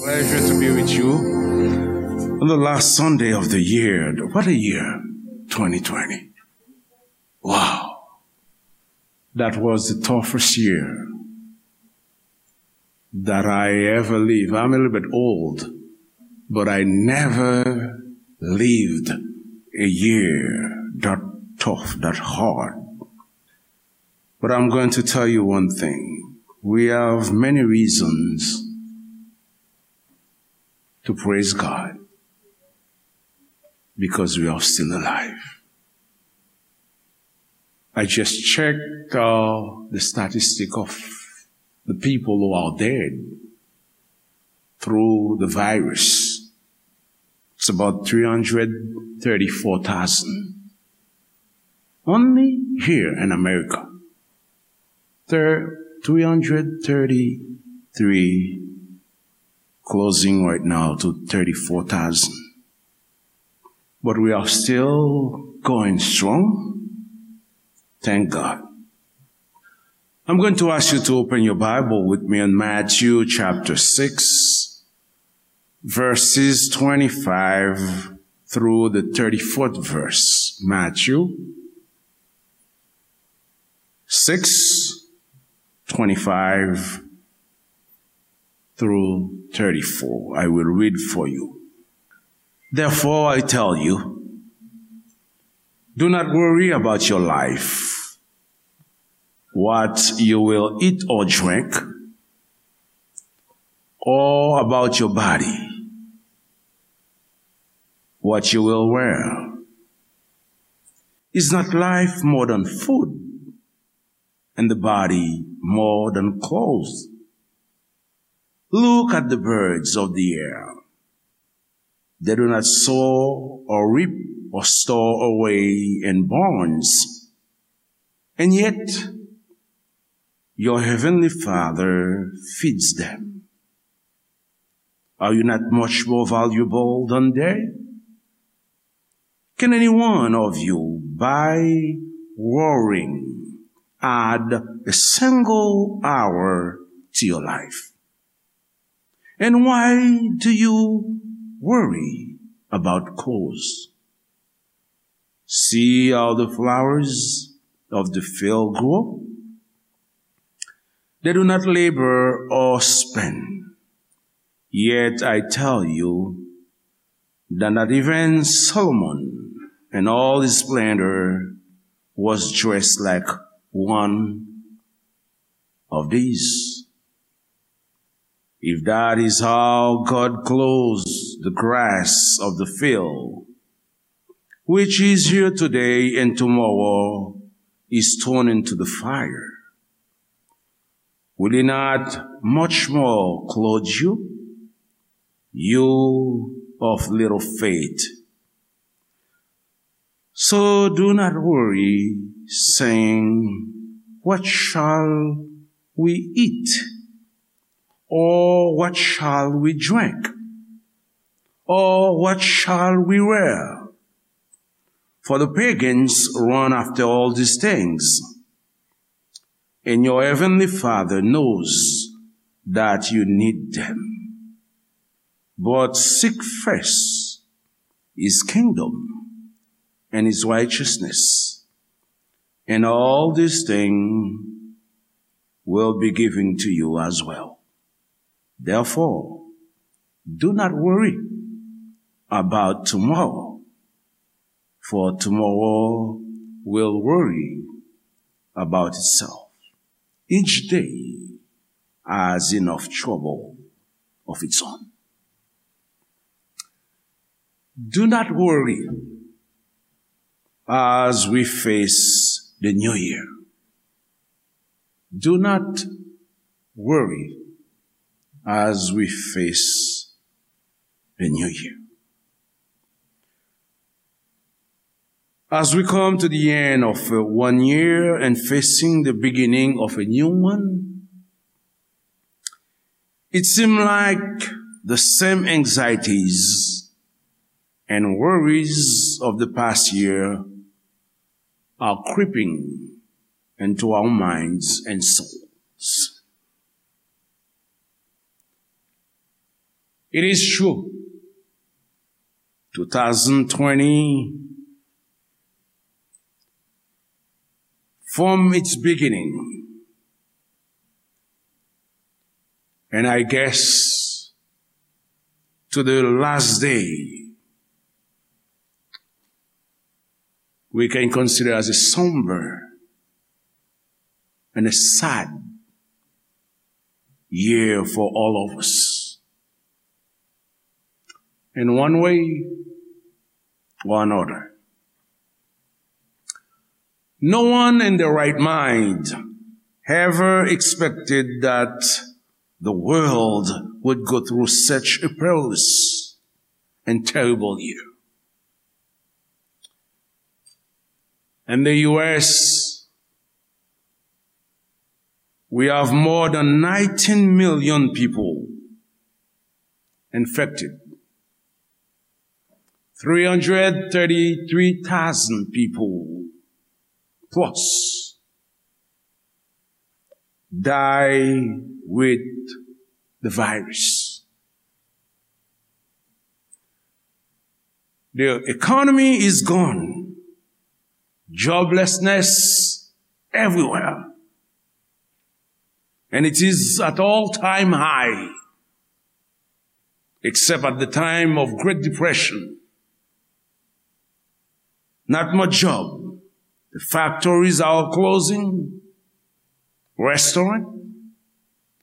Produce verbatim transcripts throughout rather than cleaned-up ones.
Pleasure to be with you on the last Sunday of the year. What a year, twenty twenty. Wow. That was the toughest year that I ever lived. I'm a little bit old, but I never lived a year that tough, that hard. But I'm going to tell you one thing. We have many reasons to praise God because we are still alive. I just checked uh, the statistic of the people who are dead through the virus. It's about three hundred thirty-four thousand. Only here in America. Thir- three hundred thirty-three, closing right now to thirty-four thousand. But we are still going strong. Thank God. I'm going to ask you to open your Bible with me in Matthew chapter six, verses twenty-five through the thirty-fourth verse. Matthew six, twenty-five through thirty-four. I will read for you. Therefore, I tell you, do not worry about your life, what you will eat or drink, or about your body, what you will wear. Is not life more than food, and the body more than clothes? Look at the birds of the air. They do not sow or reap or store away in barns, and yet your heavenly Father feeds them. Are you not much more valuable than they? Can any one of you, by worrying, add a single hour to your life? And why do you worry about clothes? See how the flowers of the field grow. They do not labor or spin. Yet I tell you that not even Solomon in all his splendor was dressed like one of these. If that is how God clothes the grass of the field, which is here today and tomorrow is thrown into the fire, will he not much more clothe you, you of little faith? So do not worry, saying, what shall we eat? Or what shall we drink? Or what shall we wear? For the pagans run after all these things, and your heavenly Father knows that you need them. But seek first his kingdom and his righteousness, and all these things will be given to you as well. Therefore, do not worry about tomorrow, for tomorrow will worry about itself. Each day has enough trouble of its own. Do not worry as we face the new year. Do not worry as we face the new year. As we come to the end of uh, one year and facing the beginning of a new one, it seems like the same anxieties and worries of the past year are creeping into our minds and souls. It is true. Two thousand twenty, from its beginning, and I guess to the last day, we can consider as a somber and a sad year for all of us, in one way or another. No one in their right mind ever expected that the world would go through such a perilous and terrible year. In the U S, we have more than nineteen million people infected. Three hundred thirty-three thousand people plus die with the virus. The economy is gone. Joblessness everywhere. And it is at all-time high, except at the time of Great Depression. Not much job. The factories are all closing. Restaurant,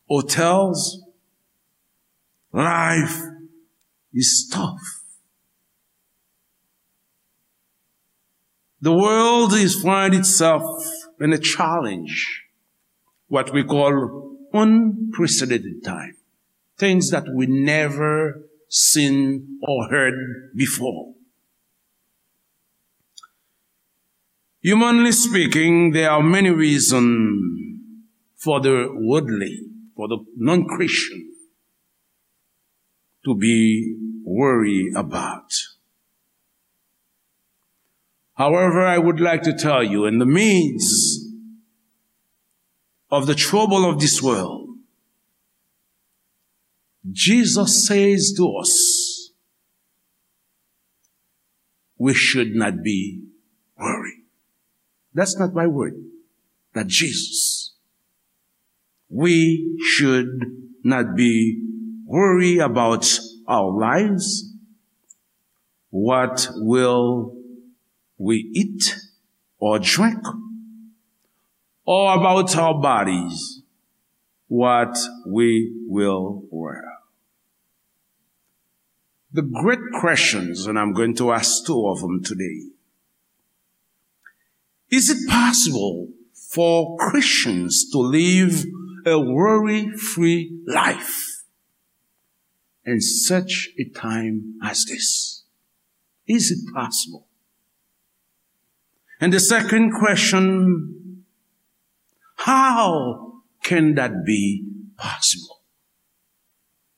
hotels, life is tough. The world is find itself in a challenge, what we call unprecedented time, things that we never seen or heard before. Humanly speaking, there are many reasons for the worldly, for the non-Christian, to be worried about. However, I would like to tell you, in the midst of the trouble of this world, Jesus says to us, we should not be worried. That's not my word, that Jesus. We should not be worried about our lives, what will we eat or drink, or about our bodies, what we will wear. The great questions, and I'm going to ask two of them today. Is it possible for Christians to live a worry-free life in such a time as this? Is it possible? And the second question, how can that be possible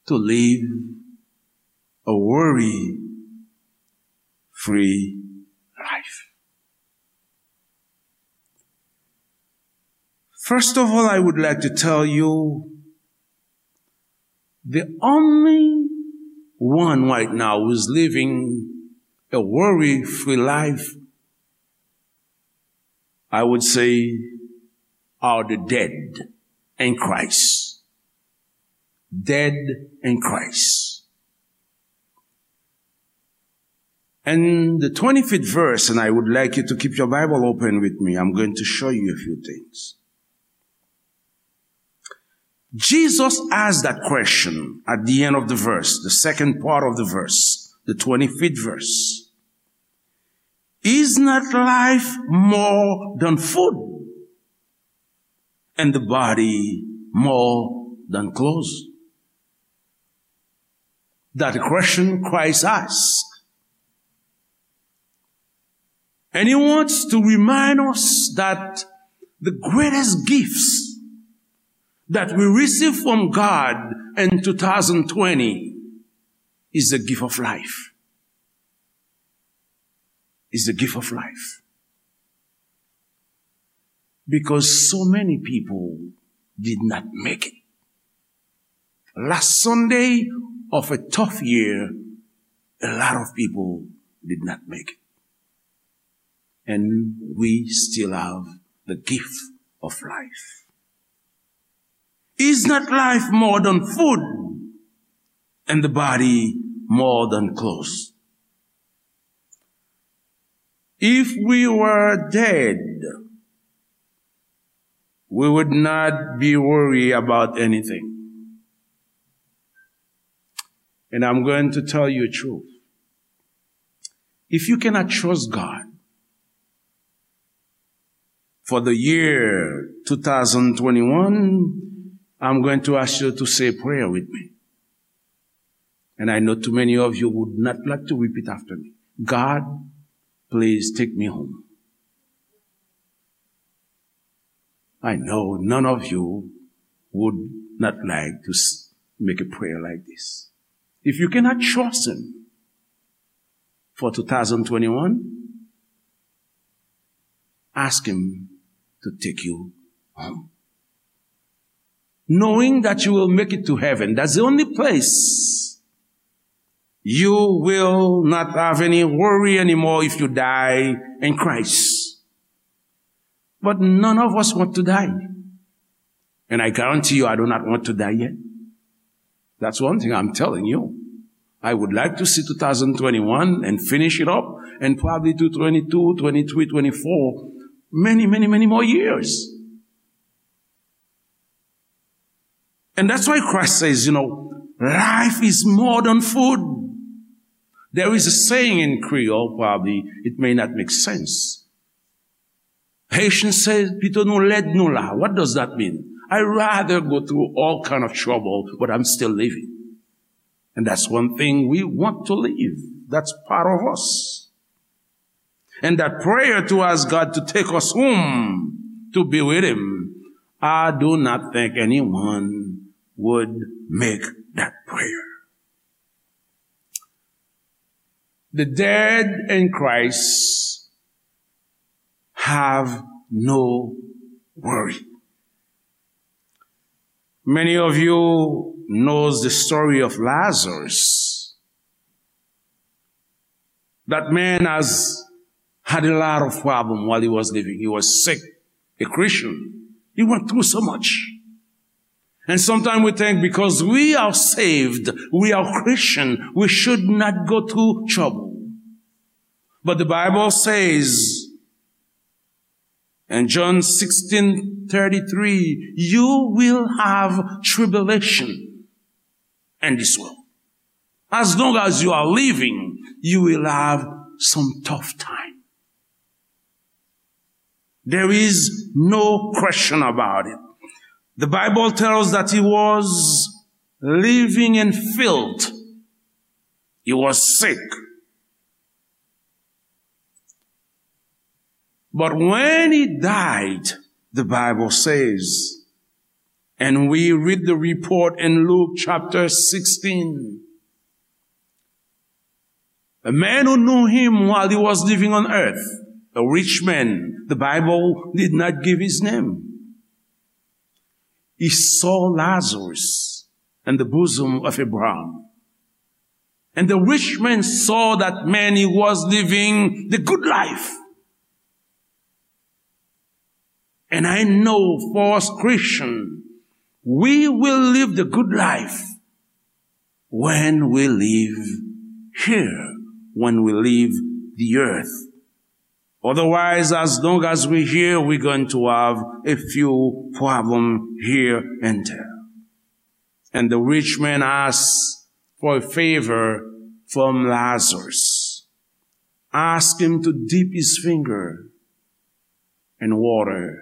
to live a worry-free life? First of all, I would like to tell you, the only one right now who is living a worry-free life, I would say, are the dead in Christ. Dead in Christ. And the twenty-fifth verse, and I would like you to keep your Bible open with me. I'm going to show you a few things. Jesus asked that question at the end of the verse, the second part of the verse, the twenty-fifth verse. Is not life more than food, and the body more than clothes? That question Christ asked. And he wants to remind us that the greatest gifts that we receive from God in two thousand twenty is the gift of life. Is the gift of life. Because so many people did not make it. Last Sunday, of a tough year, a lot of people did not make it. And we still have the gift of life. Is not life more than food, and the body more than clothes? If we were dead, we would not be worried about anything. And I'm going to tell you the truth. If you cannot trust God for the year two thousand twenty-one, I'm going to ask you to say a prayer with me. And I know too many of you would not like to repeat after me. God, please take me home. I know none of you would not like to s- make a prayer like this. If you cannot trust Him for two thousand twenty-one, ask Him to take you home. Knowing that you will make it to heaven, that's the only place you will not have any worry anymore if you die in Christ. But none of us want to die. And I guarantee you, I do not want to die yet. That's one thing I'm telling you. I would like to see two thousand twenty-one and finish it up, and probably do twenty-two, twenty-three, twenty-four, many, many, many more years. And that's why Christ says, you know, life is more than food. There is a saying in Creole, probably it may not make sense. Haitians say, "Pito nou lèd nou la." What does that mean? I rather go through all kind of trouble, but I'm still living. And that's one thing we want to live. That's part of us. And that prayer to ask God to take us home to be with Him, I do not think anyone would make that prayer. The dead in Christ have no worry. Many of you knows the story of Lazarus. That man has had a lot of problem while he was living. He was sick, a Christian. He went through so much. And sometimes we think because we are saved, we are Christian, we should not go through trouble. But the Bible says in John sixteen thirty-three, you will have tribulation in this world. As long as you are living, you will have some tough time. There is no question about it. The Bible tells that he was living in filth. He was sick. But when he died, the Bible says, and we read the report in Luke chapter sixteen, a man who knew him while he was living on earth, a rich man, the Bible did not give his name. He saw Lazarus in the bosom of Abraham. And the rich man saw that man, he was living the good life. And I know for us Christian, we will live the good life when we live here, when we leave the earth. Otherwise, as long as we here, we're going to have a few problem here and there. And the rich man asked for a favor from Lazarus. Ask him to dip his finger in water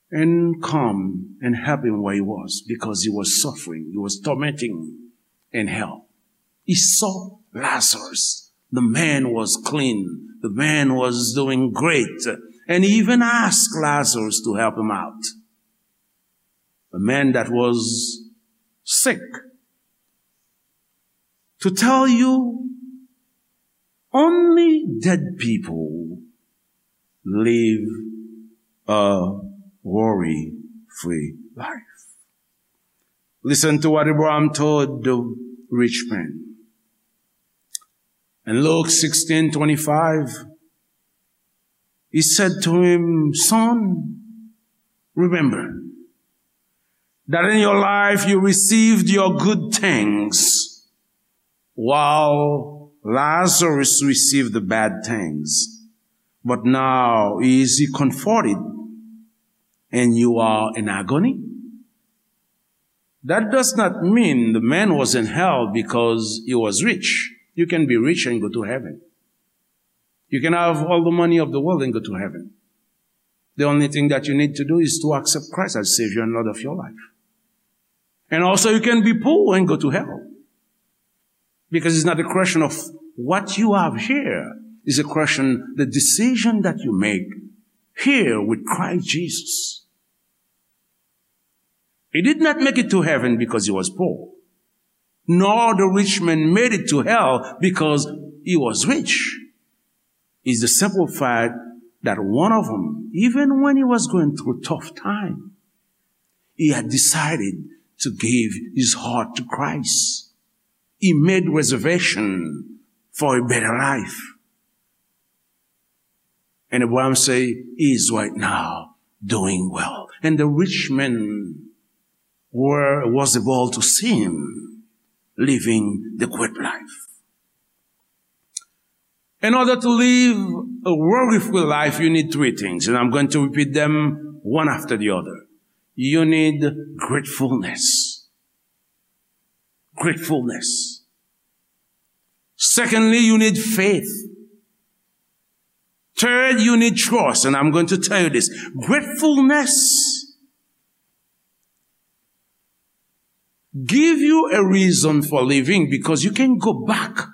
and come and help him where he was, because he was suffering, he was tormenting in hell. He saw Lazarus. The man was clean. The man was doing great. And he even asked Lazarus to help him out. A man that was sick. To tell you, only dead people live a worry-free life. Listen to what Abraham told the rich man. In Luke sixteen twenty-five, he said to him, "Son, remember that in your life you received your good things, while Lazarus received the bad things. But now is he comforted, and you are in agony?" That does not mean the man was in hell because he was rich. You can be rich and go to heaven. You can have all the money of the world and go to heaven. The only thing that you need to do is to accept Christ as Savior and Lord of your life. And also, you can be poor and go to hell. Because it's not a question of what you have here. It's a question, the decision that you make here with Christ Jesus. He did not make it to heaven because he was poor, nor the rich man made it to hell because he was rich. It's the simple fact that one of them, even when he was going through tough time, he had decided to give his heart to Christ. He made reservation for a better life. And Abraham say, "He is right now doing well." And the rich man were, was able to see him living the great life. In order to live a worry-free life, you need three things, and I'm going to repeat them one after the other. You need gratefulness. Gratefulness. Secondly, you need faith. Third, you need trust, and I'm going to tell you this. Gratefulness give you a reason for living because you can go back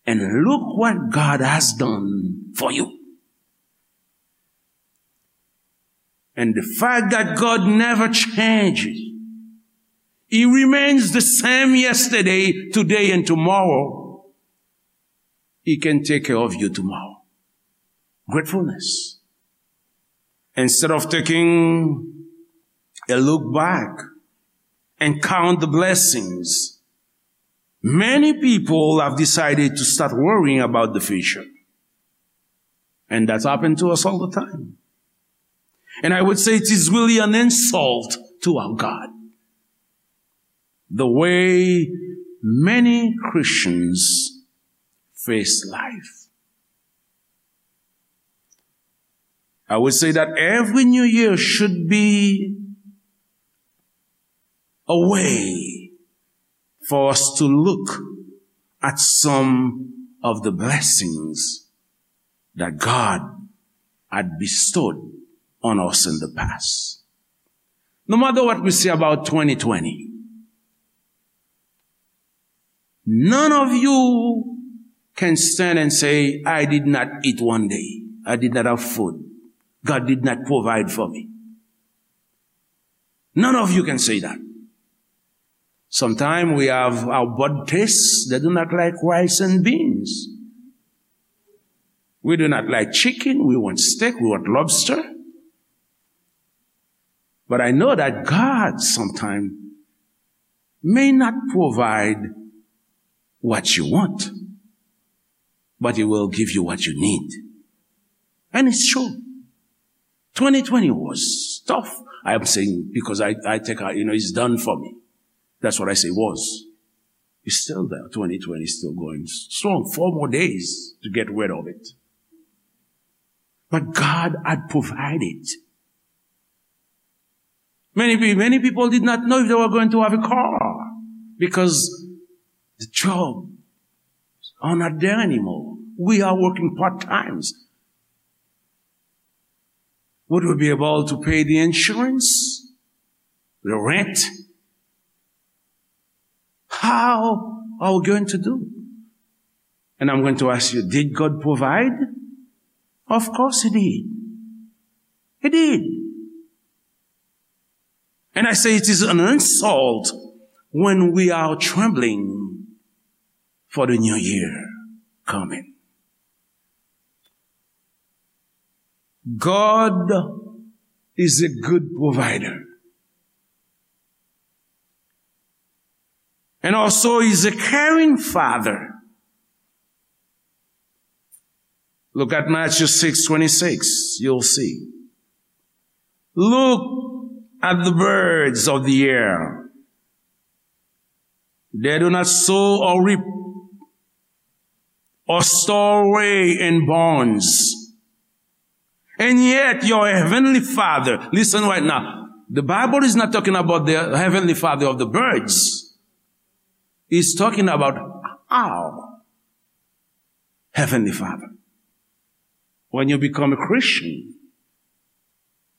and look what God has done for you. And the fact that God never changes, He remains the same yesterday, today, and tomorrow. He can take care of you tomorrow. Gratefulness. Instead of taking a look back and count the blessings, many people have decided to start worrying about the future. And that happens to us all the time. And I would say it is really an insult to our God, the way many Christians face life. I would say that every new year should be a way for us to look at some of the blessings that God had bestowed on us in the past. No matter what we say about twenty twenty, none of you can stand and say, "I did not eat one day. I did not have food. God did not provide for me." None of you can say that. Sometimes we have our bad tastes that do not like rice and beans. We do not like chicken. We want steak. We want lobster. But I know that God sometimes may not provide what you want, but He will give you what you need. And it's true. Twenty twenty was tough. I am saying because I, I think, I, you know, it's done for me. That's what I say was. It's still there. Twenty twenty is still going strong. Four more days to get rid of it. But God had provided. Many pe-, many people did not know if they were going to have a car because the jobs are not there anymore. We are working part times. Would we be able to pay the insurance, the rent? How are we going to do? And I'm going to ask you, did God provide? Of course He did. He did. And I say it is an insult when we are trembling for the new year coming. God is a good provider. And also, he's a caring father. Look at Matthew six twenty-six, you'll see. Look at the birds of the air. They do not sow or reap or store away in barns. And yet your heavenly Father, listen right now, the Bible is not talking about the heavenly Father of the birds. It's talking about our heavenly Father. When you become a Christian,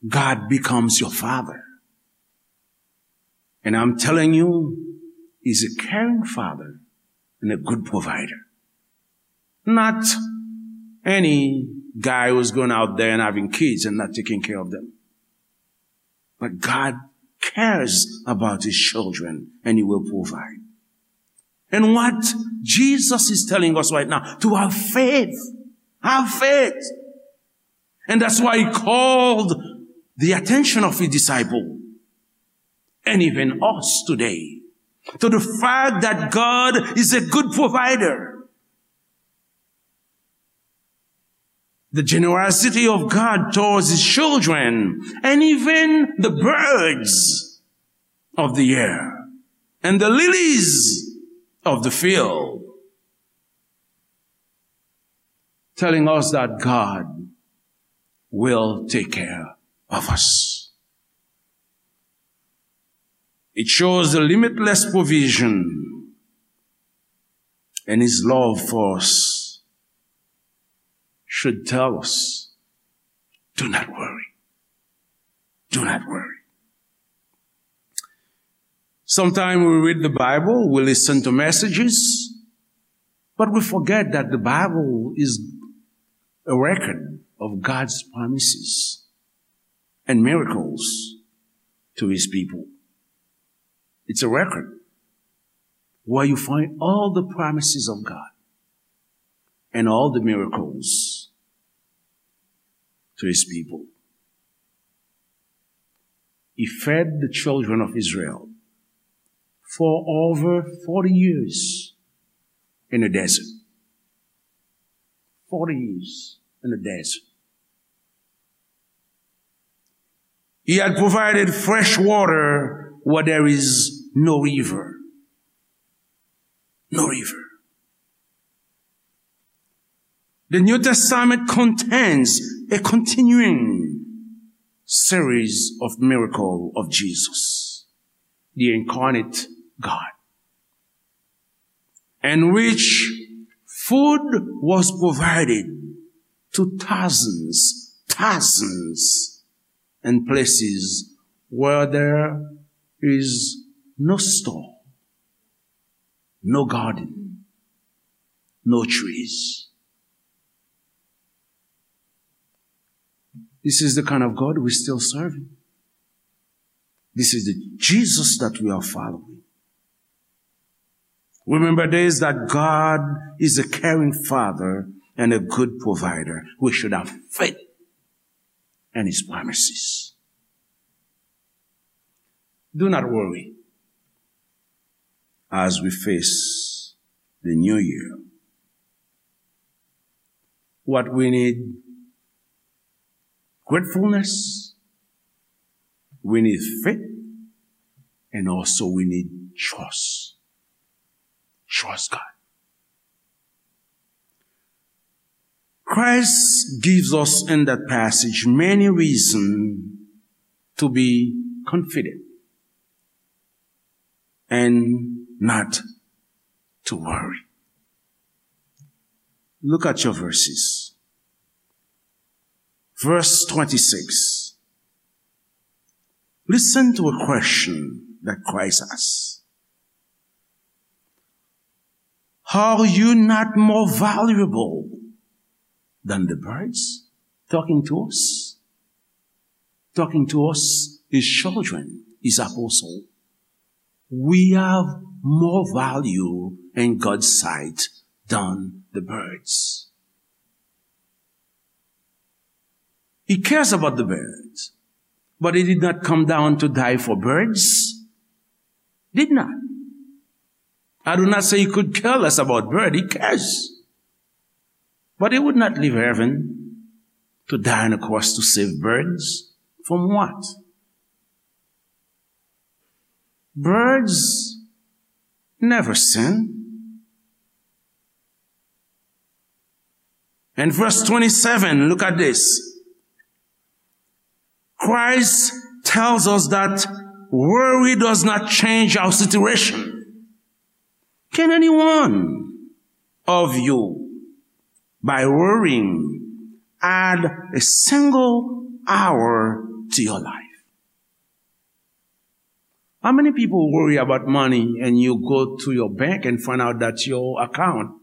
God becomes your father. And I'm telling you, he's a caring father and a good provider. Not any guy who's going out there and having kids and not taking care of them. But God cares about his children and he will provide. And what Jesus is telling us right now, to have faith. Have faith. And that's why he called the attention of his disciple, and even us today, to the fact that God is a good provider. The generosity of God towards his children, and even the birds of the air, and the lilies of the field, telling us that God will take care of us. It shows the limitless provision and his love for us should tell us, do not worry. Do not worry. Sometimes we read the Bible, we listen to messages, but we forget that the Bible is a record of God's promises and miracles to his people. It's a record where you find all the promises of God and all the miracles to his people. He fed the children of Israel for over forty years in the desert. Forty years in the desert. He had provided fresh water where there is no river. No river. The New Testament contains a continuing series of miracle of Jesus, the incarnate God, in which food was provided to thousands, thousands in places where there is no store, no garden, no trees. This is the kind of God we're still serving. This is the Jesus that we are following. Remember this, that God is a caring father and a good provider. We should have faith in his promises. Do not worry as we face the new year. What we need, gratefulness, we need faith, and also we need trust. Trust God. Christ gives us in that passage many reasons to be confident and not to worry. Look at your verses. Verse twenty-six. Listen to a question that Christ asks. Are you not more valuable than the birds? Talking to us. Talking to us, his children, his apostle. We have more value in God's sight than the birds. He cares about the birds, but he did not come down to die for birds. Did not. I do not say he could care less about bird. He cares. But he would not leave heaven to die on a cross to save birds. From what? Birds never sin. In verse twenty-seven, look at this. Christ tells us that worry does not change our situation. Can anyone of you, by worrying, add a single hour to your life? How many people worry about money and you go to your bank and find out that your account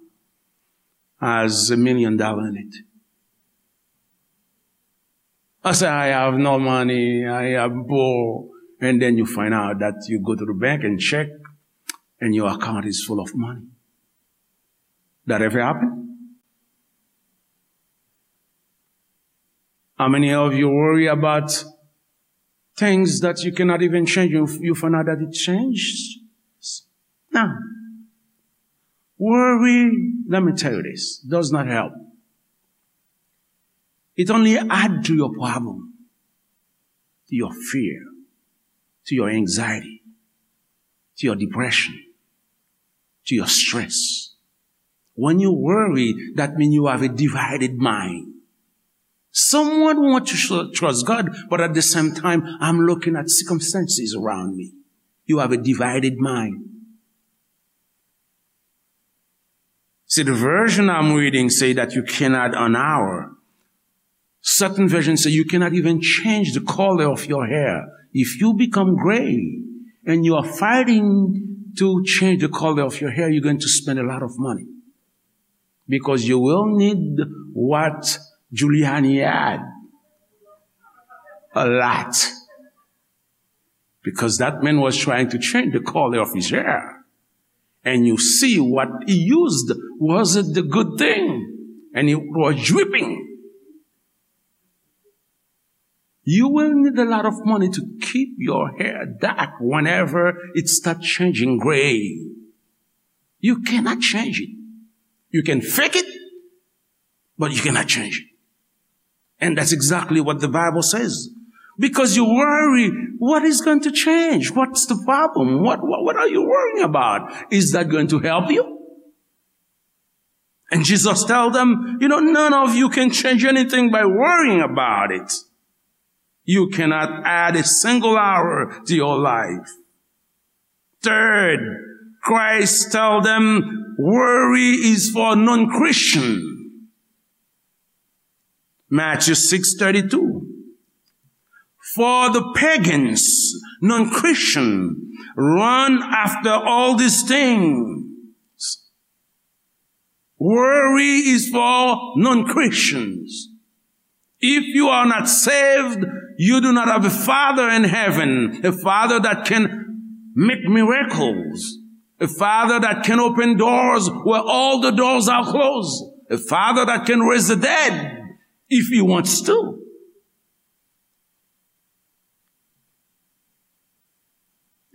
has a million dollar in it? I say, "I have no money, I am poor." And then you find out that you go to the bank and check, and your account is full of money. That ever happen? How many of you worry about things that you cannot even change? You, you find out that it changed. Now, worry, let me tell you this, does not help. It only add to your problem, to your fear, to your anxiety, to your depression, to your stress. When you worry, that means you have a divided mind. Someone want to tr- trust God, but at the same time, I'm looking at circumstances around me. You have a divided mind. See, the version I'm reading say that you cannot an hour. Certain versions say you cannot even change the color of your hair. If you become gray and you are fighting to change the color of your hair, you're going to spend a lot of money. Because you will need what Giuliani had. A lot. Because that man was trying to change the color of his hair. And you see what he used wasn't the good thing. And it was dripping. You will need a lot of money to keep your hair dark whenever it starts changing gray. You cannot change it. You can fake it, but you cannot change it. And that's exactly what the Bible says. Because you worry, what is going to change? What's the problem? What, what, what are you worrying about? Is that going to help you? And Jesus tell them, you know, none of you can change anything by worrying about it. You cannot add a single hour to your life. Third, Christ tell them worry is for non-Christian. Matthew six thirty-two. For the pagans, non-Christian, run after all these things. Worry is for non-Christians. If you are not saved, you do not have a Father in heaven, a Father that can make miracles, a Father that can open doors where all the doors are closed, a Father that can raise the dead if He wants to.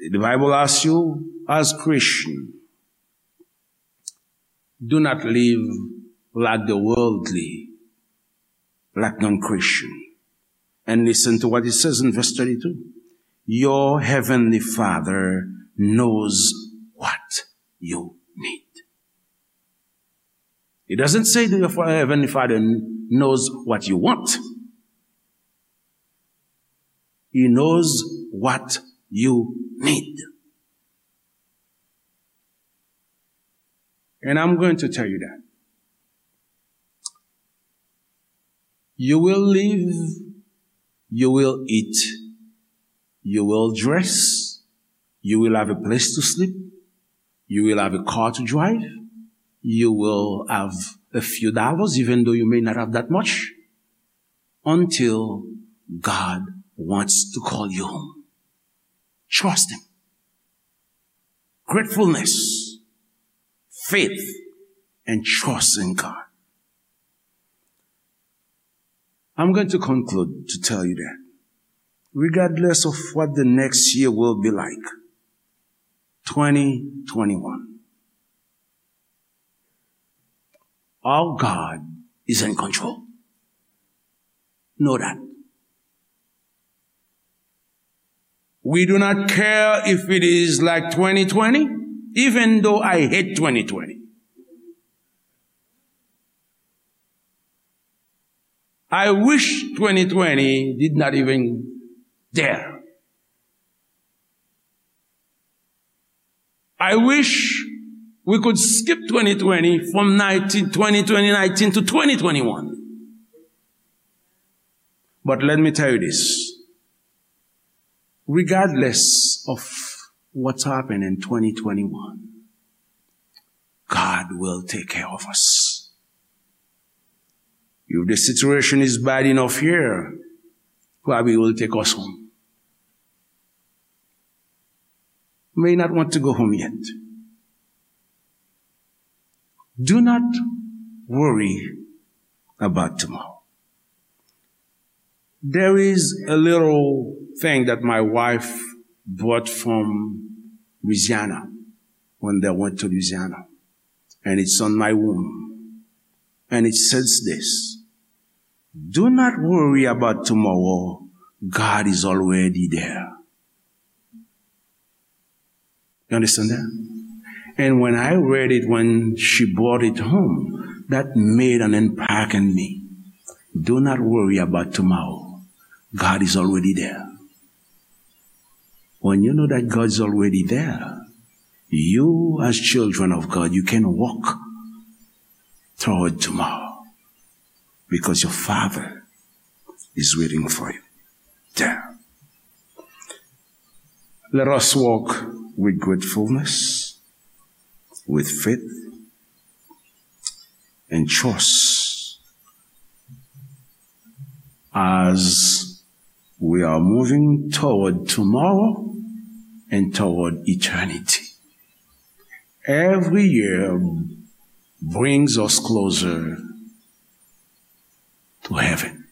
The Bible asks you, as Christian, do not live like the worldly, like non-Christian. And listen to what it says in verse thirty-two. Your heavenly Father knows what you need. It doesn't say that your fa- heavenly Father kn- knows what you want. He knows what you need. And I'm going to tell you that. You will live, you will eat, you will dress, you will have a place to sleep, you will have a car to drive, you will have a few dollars, even though you may not have that much, until God wants to call you home. Trust Him. Gratefulness, faith, and trust in God. I'm going to conclude to tell you that, regardless of what the next year will be like, twenty twenty-one, Our God is in control. Know that. We do not care if it is like twenty twenty, even though I hate twenty twenty. I wish twenty twenty did not even there. I wish we could skip twenty twenty from nineteen, twenty twenty nineteen to twenty twenty-one. But let me tell you this. Regardless of what's happened in twenty twenty-one, God will take care of us. If the situation is bad enough here, probably He will take us home. May not want to go home yet. Do not worry about tomorrow. There is a little thing that my wife brought from Louisiana when they went to Louisiana. And it's on my room. And it says this: "Do not worry about tomorrow. God is already there." You understand that? And when I read it, when she brought it home, that made an impact in me. Do not worry about tomorrow. God is already there. When you know that God is already there, you, as children of God, you can walk toward tomorrow because your Father is waiting for you there. Let us walk with gratefulness, with faith, and trust as we are moving toward tomorrow and toward eternity. Every year brings us closer to heaven.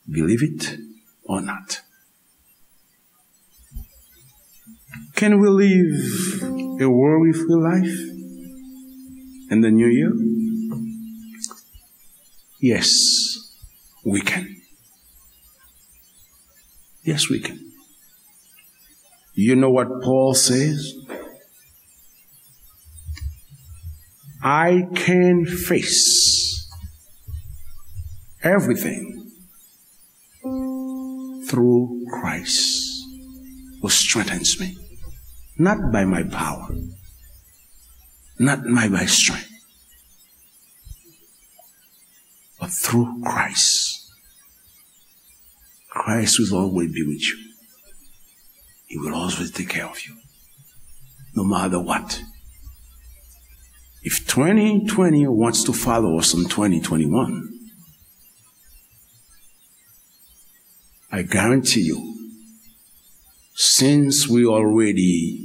Believe it or not. Can we live a worry-free life in the new year? Yes, we can. Yes, we can. You know what Paul says? "I can face everything through Christ who strengthens me." Not by my power, not by my strength, but through Christ. Christ will always be with you. He will always take care of you, no matter what. If twenty twenty wants to follow us in twenty twenty-one, I guarantee you, since we already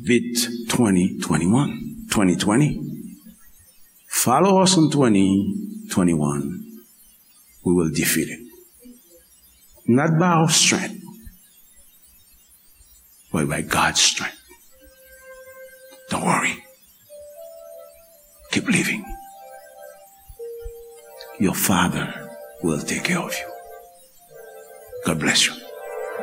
beat twenty twenty-one, twenty twenty, follow us in twenty twenty-one, we will defeat it. Not by our strength, but by God's strength. Don't worry. Keep living. Your Father will take care of you. God bless you.